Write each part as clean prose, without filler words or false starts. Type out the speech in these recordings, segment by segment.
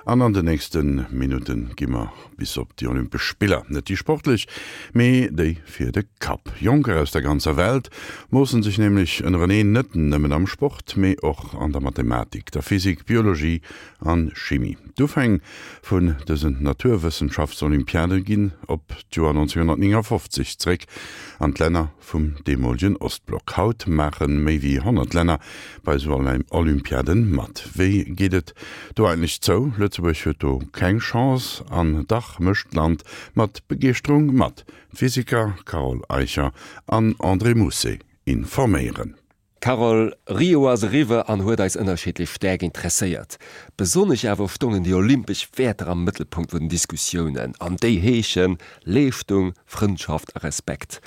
An an den nächste Minutte gi mer bis op déi Olympesch Spiller. Net déi sportlech, mee déi fir de Kapp. Jonker aus der ganzer Welt moossen sech nämlech ënnereneen, net nëmmen am Sport, mee och an der Mathematik, der Physik, Biologie an Chimie. D'Ufäng vun dësen Naturwëssenschaftsolympiade ginn op d'Joer 1959 zréck an d'Länner vum deemolegen Ostblock. Haut maache méi wéi 100 Länner bei esou Olympiaden mat. Wéi geet et do eigentlech zou? Lëtzebuerg huet do keng Chance an dach mécht d'Land mat Begeeschterung mat. D'Physiker Carole Eicher an André Mousset informéieren. Carole, Rio ass eriwwer an huet eis ënnerschiddlech staark interesséiert. Besonnesch awer stongen déi olympesch Wäerter am Mëttelpunkt vun den Diskussiounen, an déi heeschen, Leeschtung, Frëndschaft a Respekt.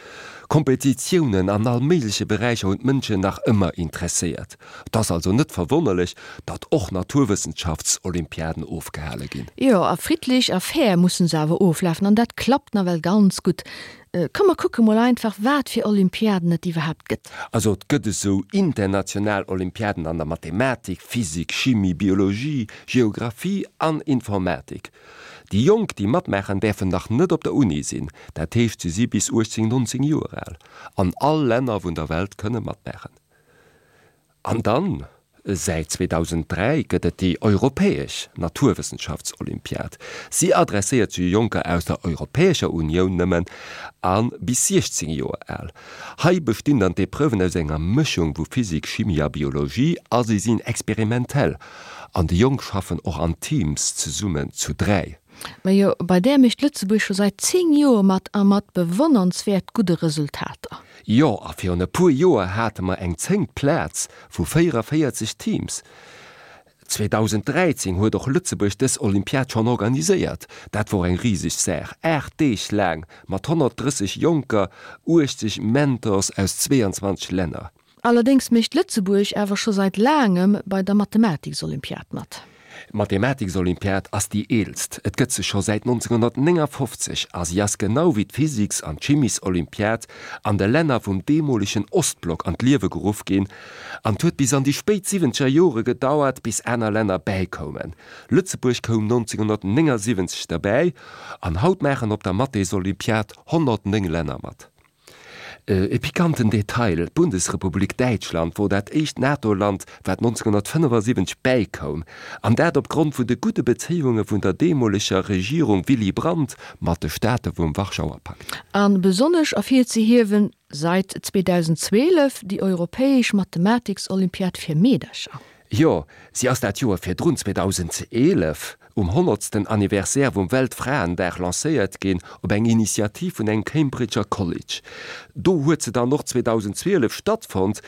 Kompetitiounen an all méigleche Beräicher hunn d'Mënschen nach ëmmer interesséiert. Et ass also net verwonnerlech, datt och Naturwëssenschaftsolympiaden ofgehale ginn. Jo, a friddlech a fair mussen se awer oflafen, an dat klappt nawell ganz gutt. Komm mer kucke mol einfach wat fir Olympiaden et iwwerhaapt gëtt. Also et gëtt esou international Olympiaden an der Mathematik, Physik, Chimie, Biologie, Geographie an Informatik. Déi Jonk déi matmaachen däerfen nach net op der Uni sinn, dat heescht se si bis 18, 19 Joer al. An all Länner vun der Welt kënne matmaachen. An dann, säit 2003 gëtt et déi europäesch Naturwëssenschaftsolympiad. Si adresséiert sech u Jonker aus der Europäescher Unioun nëmmen a bis 16 Joer al. Hei bestinn dann d'Epreuven aus enger Mëschung vu Physik, Chimie a Biologie a si sinn experimentell. An déi Jonk schaffen och an Teams zesummen, zu 3. Majo, bei där mécht Lëtzebuerg scho säit 10 Joer mat a mat bewonnernswäert gudde Resultater. Jo, a virun e puer Joer hate mer eng zéngt Plaz vu 44 Teams. 2013 huet och Lëtzebuerg dës Olympiad schonn organiséiert. Dat wor eng riseg Saach, 8 Deeg laang mat 130 Jonker, 80 Mentors aus 22 Länner. Allerdéngs mécht Lëtzebuerg awer scho seit laangem bei der Mathematiksolympiad mat. D'Mathematiksolympiad ass déi eelst, et gëtt se scho säit 1959 a si ass genau wéi d'Physiks an d'Chimiesolympiad an de Länner vum deemolegen Ostblock an d'Liewe geruff ginn an 't huet bis an déi spéit siwwenzeger Jore gedauert bis aner Länner bäikoumen. Lëtzebuerg koum 1979 derbäi an haut maachen op der Mathesolympiad 109 Länner mat. E pikanten Detail, D'Bundesrepublik Däitschland wor dat éischt NATO-Land, wat 1975 bäikoum, an dat op Grond vun de gudde Bezéiunge vun der deemoleger Regierung Willy Brandt mat de Staate vum Warschauer Pakt. A besonnesch ervirzehiewen, seit 2012 déi europäesch Mathematiksolympiad fir Meedercher. Jo, si ass dat Joer virdrun, 2011, um honnertsten Anniversaire vum Weltfraendag lancéiert ginn, op eng Initiativ vun engem Cambridger College. Do huet se dann och 2012 stattfonnt.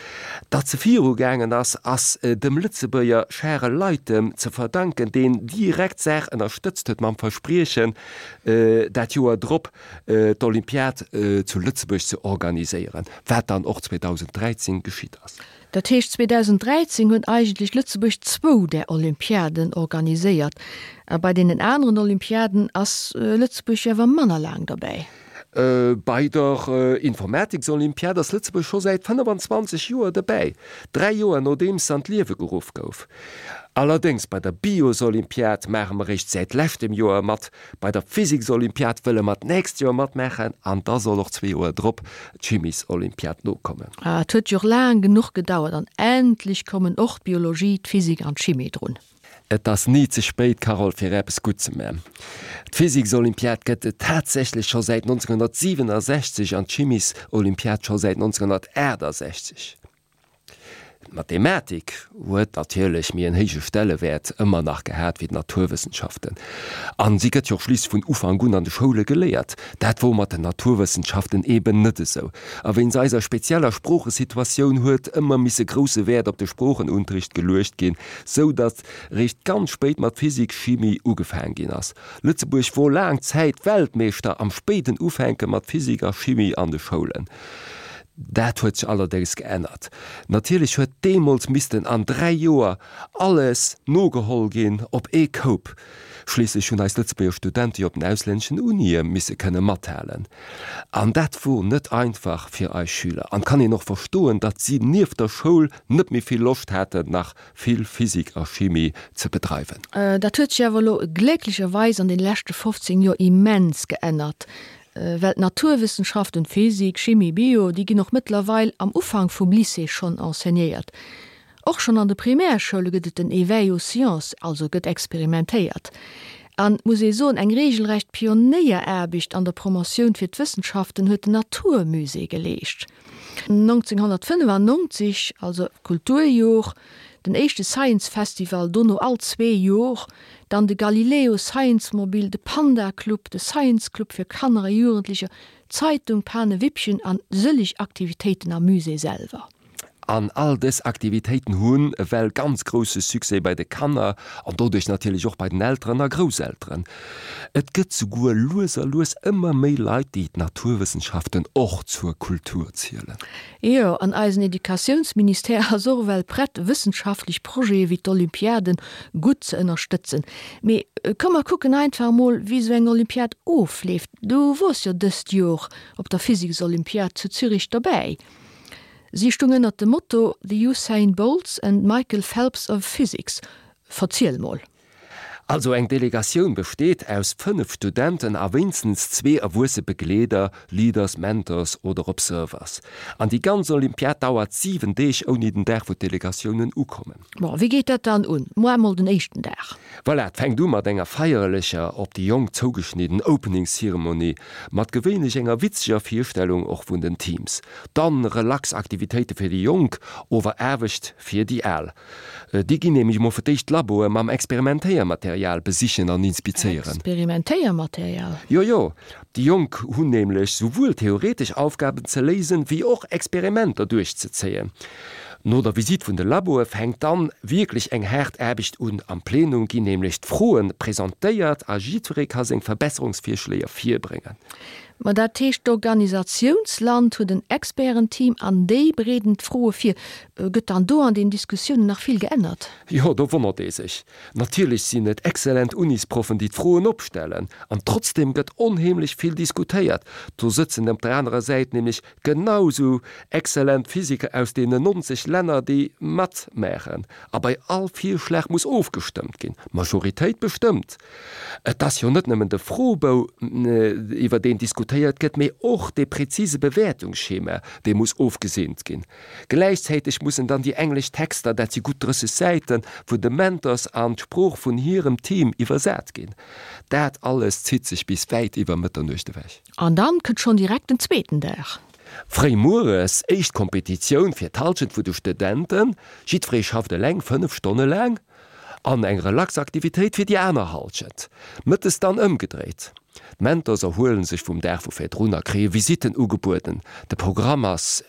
Datt se virugaangen ass, ass dem Lëtzebuerger Charel Leytem ze verdanken, deen direkt d'Saach ënnerstëtzt huet mam Verspriechen, dat Joer drop d'Olympiad zu Lëtzebuerg ze organiséieren, wat dann och 2013 geschitt ass. Dat heescht, 2013 huet eigentlech Lëtzebuerg zwou där Olympiaden organiséiert. A bei deenen aneren Olympiaden ass Lëtzebuerg jo awer manner laang derbäi. Bei der Informatiksolympiad ass Lëtzebuerg scho säit 25 Joer derbäi, dräi Joer nodeems se an d'Liewe geruff gouf. Allerdéngs bei der Biosolympiad maache mer eréischt säit leschtem Joer mat. Bei der Physiksolympiad wëlle mer d'nächst Joer matmaachen an da soll och zwee Joer drop d'Chimiesolympiad nokommen. Ah, et huet jo och laang genuch gedauert an endlech kommen och d'Biologie, d'Physik an d'Chimie drun. Et ass ni ze spéit, Carole, fir eppes gutt ze man. D'Physiksolympiad gëtt et tatsächlech scho säit 1967 an d'Chimiesolympiad scho säit 1968. D'Mathematik huet natierlech méi en héije Stellewäert ëmmer nach gehat wéi d'Naturwëssenschaften. An si gëtt jo och schliisslech vun Ufank un an de Schoule geléiert. Dat wor mat den Naturwëssenschaften eben net esou. A wéinst eiser spezieller Sproochesituatioun huet ëmmer misse grousse Wäert op de Sproochenunterricht geluecht ginn, sou datt réischt ganz spéit mat Physik, Chimie ugefaang ginn ass. Lëtzebuerg wor laang Zäit Weltmeeschter am spéiden Ufänke mat Physik a Chimie an de Schoulen. Dat huet sech allerdéngs geännert. Natierlech huet deemools missten an 3 Joer alles nogeholl ginn op ee Koup. Schliisslech hunn eis Lëtzebuerger Studente jo op den auslänneschen Unie misse kënne mathalen. An dat wor net einfach fir eis Schüler. An kann een och verstoen, datt si nieft der Schoul net méi vill Loscht haten, nach vill Physik a Chimie ze bedreiwen. Dat huet sech awer elo glécklecherweis an den leschte 15 Joer immens geännert. Well d'Naturwëssenschaften, Physik, Chimie, Bio, déi ginn och mëttlerweil am Ufank vum Lycée schonn enseignéiert. Och schonn an de Primärschoule gëtt et den Éveil aux sciences, also gëtt experimentéiert. An, muss ee soen, eng regelrecht Pionéieraarbecht an der Promotioun fir d'Wëssenschaften huet den Naturmusée geleescht. 1995, also Kulturjor, den éischte Science Festival, dono all zwee Jor dann de Galileo Science Mobil, de Panda Club, de Science Club fir Kanner a Jugendlecher, d'Zeitung Panewippchen an sëlleg Aktivitéiten am Musée selwer. An all dës Aktivitéiten hunn ewell ganz grousse Succès bei de Kanner an doduerch natierlech och bei den Elteren a Grousselteren. Et gëtt souguer lues a lues ëmmer méi Leit, déi d'Naturwëssenschaften och zur Kultur zielen. Jo, an eisen Educatiounsministère ass och ewell prett, wëssenschaftlech Projete wéi d'Olympiaden gutt ze ënnerstëtzen. Mee komm mer kucken einfach emol, wéi esou eng Olympiad ofleeft. Du wors jo dëst Jor op der Physiksolympiad zu Zürich dobäi. Si stung ënnert dem Motto The Usain Bolts and Michael Phelps of Physics. Verziel mol. Also eng Delegatioun besteet aus 5 Studenten a wéinstens zwee erwuesse Begleeder, Leaders, Mentors oder Observers. An déi ganz Olympiad dauert 7 Deeg ouni den Dag wou d'Delegatiounen ukommen. Bon, wéi geet dat dann un? Moar mol den éischten Dag. Voilà, et fänkt u mat enger feierlecher, op déi Jonk zougeschnidden Opening Ceremony, mat gewéinlech enger witzeger Virstellung och vun den Teams. Dann relax Aktivitéite fir déi Jonk, ower Aarbecht fir déi Al. Déi ginn nämlech mol fir d'éischt d'Laboe mam Experimentéiermaterial besichen an inspizéieren. Experimentéiermaterial? Jo, jo. Déi Jonk hunn nämlech souwuel theoretesch Aufgaben ze léisen, wéi och Experimenter duerchzezéien. No der Visitt vun de Laboe fänkt dann wierklech eng haart Aarbecht un. Am Plenum ginn nämlech d'Froen presentéiert a jiddweree ka seng Verbesserungsvirschléier virbréngen. Ma dat heescht, d'Organisatiounsland huet en Expertenteam an déi bereeden d'Froe vir. Gëtt dann do an den Diskussiounen nach vill geännert? Jo, do wonnert ee sech. Natierlech sinn et exzellent Unisproffen, déi d'Froen opstellen. An trotzdeem gëtt onheemlech vill diskutéiert. Do sëtzen op der anerer Säit nämlech genau sou exzellent Physiker aus deenen 90 Länner, déi matmaachen. A bei all Virschlag muss ofgestëmmt ginn. D'Majoritéit bestëmmt. Et ass jo net nëmmen de Froebou, iwwer deen diskutéiert gëtt, mee och dee präzise Bewäertungsschema, dee muss ofgeseent ginn. Gläichzäiteg mussen dann déi englesch Texter, dat si gutt 30 Säiten, vun de Mentors an d'Sprooch vun hirem Team iwwersat ginn. Dat alles zitt sech bis wäit iwwer Mëtternuecht ewech. An dann kënnt schonn direkt den zweeten Dag. Fréi mueres, éischt Kompetitioun fir d'Hallschent vu de Studenten. Jiddweree schafft eleng 5 Stonne laang. An eng Relaxaktivitéit fir déi aner Halschent. Mëttes dann ëmgedréit. D'Mentors erhuelen sech vum Dag vu virdrun a kréie Visitten ugebueden. De Programm ass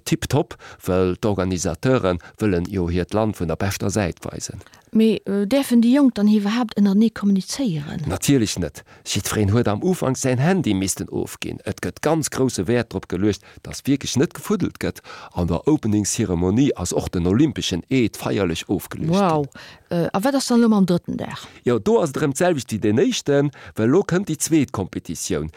tiptop, well d'Organisateure wëllen jo hiert Land vun der beschter Säit weisen. Mee däerfen déi Jonk dann iwwerhaapt ënnertenee kommunizéieren? Natierlech net. Jiddwereen huet am Ufank säin Handy missten ofginn. Et gëtt ganz grousse Wäert drop geluecht, dass wierklech net gefuddelt gëtt. An der Opening Ceremonie ass och den olympeschen Eed feierlech ofgeluecht ginn. Wow! A wat ass dann elo mam drëtten Dag? Jo, do ass et erëm d'selwecht wéi deen éischten, well elo kënnt déi zweet Kompetitioun.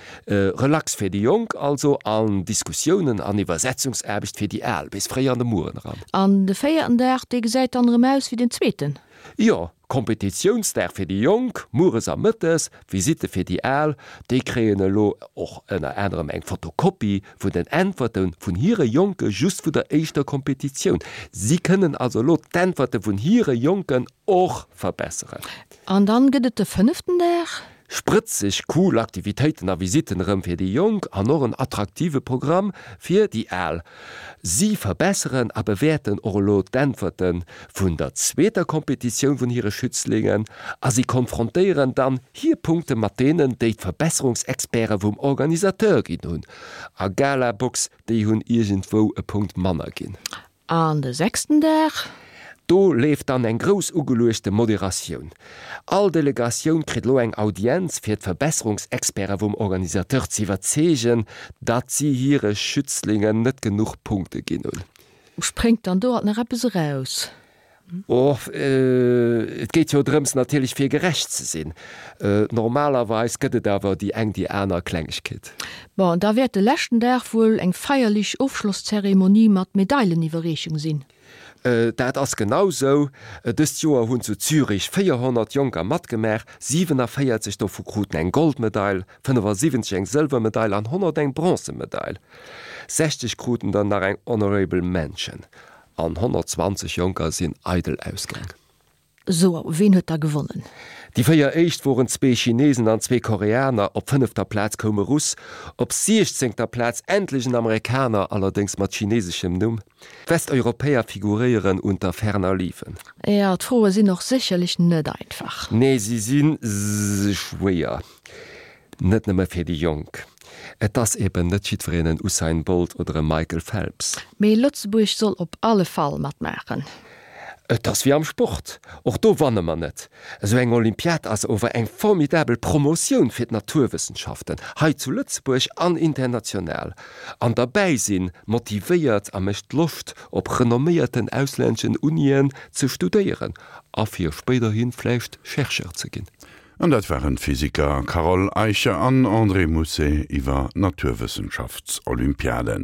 Relax fir déi Jonk also an Diskussiounen an Iwwersetzungsaarbecht fir déi Al bis fréi an de Mueren eran. An de véierten Dag, dee gesäit dann erëm aus wéi den zweeten? Jo, Kompetitiounsdag fir déi Jonk, mueres a mëttes, Visitte fir déi Al. Déi kréien elo och ënner anerem eng Fotokopie vun den Äntwerte vun hire Jonke just vun der éischter Kompetitioun. Si kënnen also elo d'Äntwerte vun hire Jonken och verbesseren. An dann gëtt et de fënneften Dag. Sprëtzeg cool Aktivitéiten a Visitten erëm fir déi Jonk an och en attraktive Programm fir déi Al. Si verbesseren a bewäerten och elo d'Äntwerte vun der zweeter Kompetitioun vun hire Schützlingen a si konfrontéieren dann hir Punkte mat deenen, déi d'Verbesserungsexperte vum Organisateur ginn hunn. A Galabox, déi hunn iergendwou e Punkt manner ginn. An de sechsten Dag? Do leeft dann eng grouss ugeluechte Moderatioun. All Delegatioun kritt elo eng Audienz, fir d'Verbesserungsexperte vum Organisateur ze iwwerzeegen, datt si hire Schützlingen net genuch Punkte ginn hunn. Spréngt dann do alt nach eppes eraus? Oh, et geet jo drëms natierlech fir gerecht ze sinn. Normalerweis gëtt et awer déi eng déi aner Klengegkeet. Bon, da wäert de leschten Dag wuel eng feierlich Ofschlosszeremonie mat Medaileniwwerreechung sinn. Dat ass genau sou. Dëst Joer hunn zu Zürich 400 Jonker matgemaach, 47 dovu kruten eng Goldmedail, 75 eng Sëlwermedail an 100 eng Bronzemedail. 60 kruten der nach eng Honorable Mention an 120 Jonker sinn eidel ausgaang. Sou, ween huet da gewonnen? Déi 4 éischt woren zwee Chinesen an zwee Koreaner, op fënnefter Plaz koum e Russ, op siechzéngter Plaz endlech en Amerikaner, allerdéngs mat chineseschem Numm. D'Westeuropäer figuréieren unter ferner liefen. Jo, d'Froe sinn och sécherlech net einfach. Nee, si si schwéier. Net nëmme fir déi Jonk. Et ass eben net jiddwereen en Usain Bolt oder e Michael Phelps. Mee Lëtzebuerg soll op alle Fall matmaachen. Et ass wéi am Sport, och do wanne mer net. Esou eng Olympiad ass ower eng formidabel Promotioun fir d'Naturwëssenschaften, hei zu Lëtzebuerg an international. An derbäi sinn motivéiert a mécht Loscht, op renomméierten auslänneschen Unien ze studéieren a fir spéiderhi vläicht Chercheur ze ginn. An dat waren d'Physiker Carole Eicher an André Mousset iwwer Naturwëssenschaftsolympiaden.